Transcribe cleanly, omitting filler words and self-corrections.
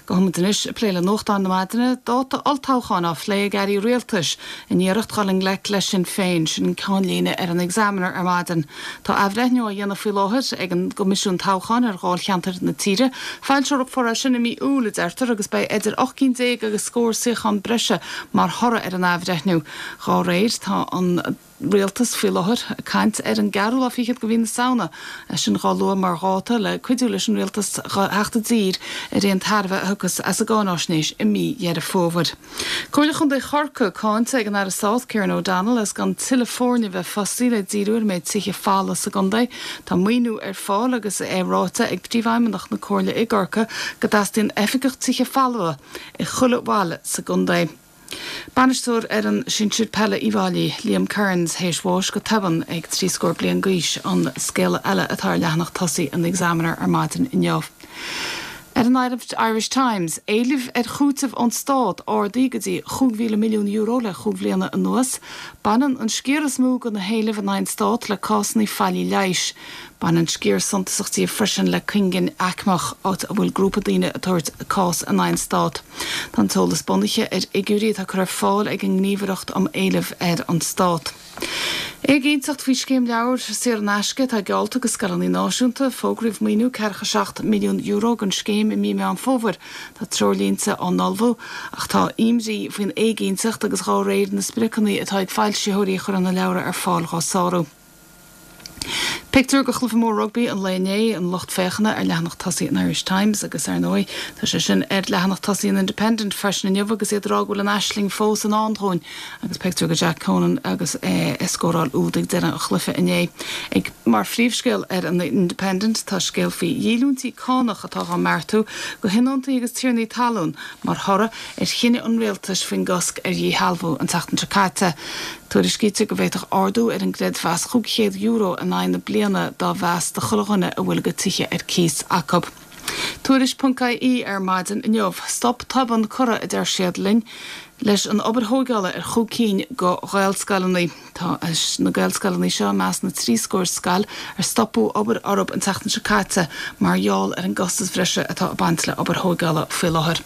Gabhfaidh muid anois ag plé le nuachtáin na maidine, dáta olltoghcháin á phlé ag airí rialtais in iarracht dhul i ngleic le Sinn Féin, sin an ceannlíne ar an Examiner ar maidin. Tá athbhreithniú á dhéanamh faoi láthair ag an gCoimisiún Toghcháin ar dháilcheantair na tíre. Foilseofar é sin i mí Iúil, a deirtear, agus beidh idir 18 cinn agus scór suíochán breise mar thoradh ar an athbhreithniú. Dhá réir, tá an. Rialtas faoi láthair ag caint ar an gceathrú lá fichead de mhí na Samhna, é sin dhá lua mar dháta le cuidiú leis an Rialtas theacht i dtír ar aon tairbhe a thiocfas as an gcáináisnéis i mí Dheireadh Fómhair. Comhairle Chontae Chorcaí cáinte ag an Aire Stáit Kieran O'Donnell as gan tuilleadh foirne a bheith fostaí le díriú ar an méid tithe folamh sa gcontae. Tá maoiniú ar fáil agus é ráite ag Príomhfheidhmeannach na Comhairle i gCorcaigh go dteastaíonn oifigeach tithe folmha i chuile bhaile sa gcontae. Bainisteoir fhoireann sinsir peile Uíbh Fhailí, Liam Kearns, théis bháis go tobann ag trí scór bliain d'aois, an scéala eile atá ar leathanach tosaigh an Examiner ar maidin inniu. Ar an Irish Times, éilimh ar chúiteamh ón stát ardaithe go dtí €5,000 milliún le chúig bhliana anuas. Baineann an sciar is mó de na héilimh in aghaidh an stát le cásanna faillí leighis. Baineann sciar suntasach díobh freisin le cuingin aicmeach, áit a bhfuil grúpa daoine ag tabhairt cás in aghaidh an stát. Tá an t-eolas bunaithe ar fhigiúirí atá curtha ar fáil ag an nGníomhaireacht um Éilimh ar an Stát. Éiginnteacht faoi scéim leabhar saor in aisce atá geallta do scoileanna náisiúnta. Fógraíodh maoiniú €47 milliún don scéim i mí Meán Fómhair. Tá treoirlínte á n-ullmhú ach tá imní faoin éiginnteacht agus dhá réir na spriocanna atá ag foilsitheoirí a chuireann na leabhra ar fáil dhá sárú. Pictiúr de chluiche mór rugbaí an lae inné, an lucht féachana ar leathanach tosaigh an Irish Times agus, ar ndóigh, tá sé sin ar leathanach tosaigh an Independent freisin inniu agus iad ag rá go bhfuil an aisling fós i ndán dúinn agus pictiúr de Jack Conan agus é ag scóráil úd ag deireadh an chluiche inné. Ag mar phríomhscéal ar an Independent tá scéal faoi dhíolúintí cánach atá dhá mbeartú do thionóntaí agus tiarnaí talún mar thoradh ar chinneadh an rialtais faoin gcosc ar dhíshealbhú an tseachtain seo caite. Tuairiscítear go bhféadfadh ardú ar an gcreidmheas €500 in aghaidh na bliana dá mheas do chuile dhuine a bhfuil a gcuid tithe ar cíos acu. Tuairisc.ie ar maidin inniu. Stop tobann curtha, a deir siad linn, leis an obair thóigeála ar chúig cinn de Ghaelscoileanna. Tá na Gaelscoileanna seo i measc na dtrí scór scoil ar stopadh obair orthu an tseachtain seo caite mar gheall ar an gcostas bhreise atá ag baint le obair thóigeála faoi láthair.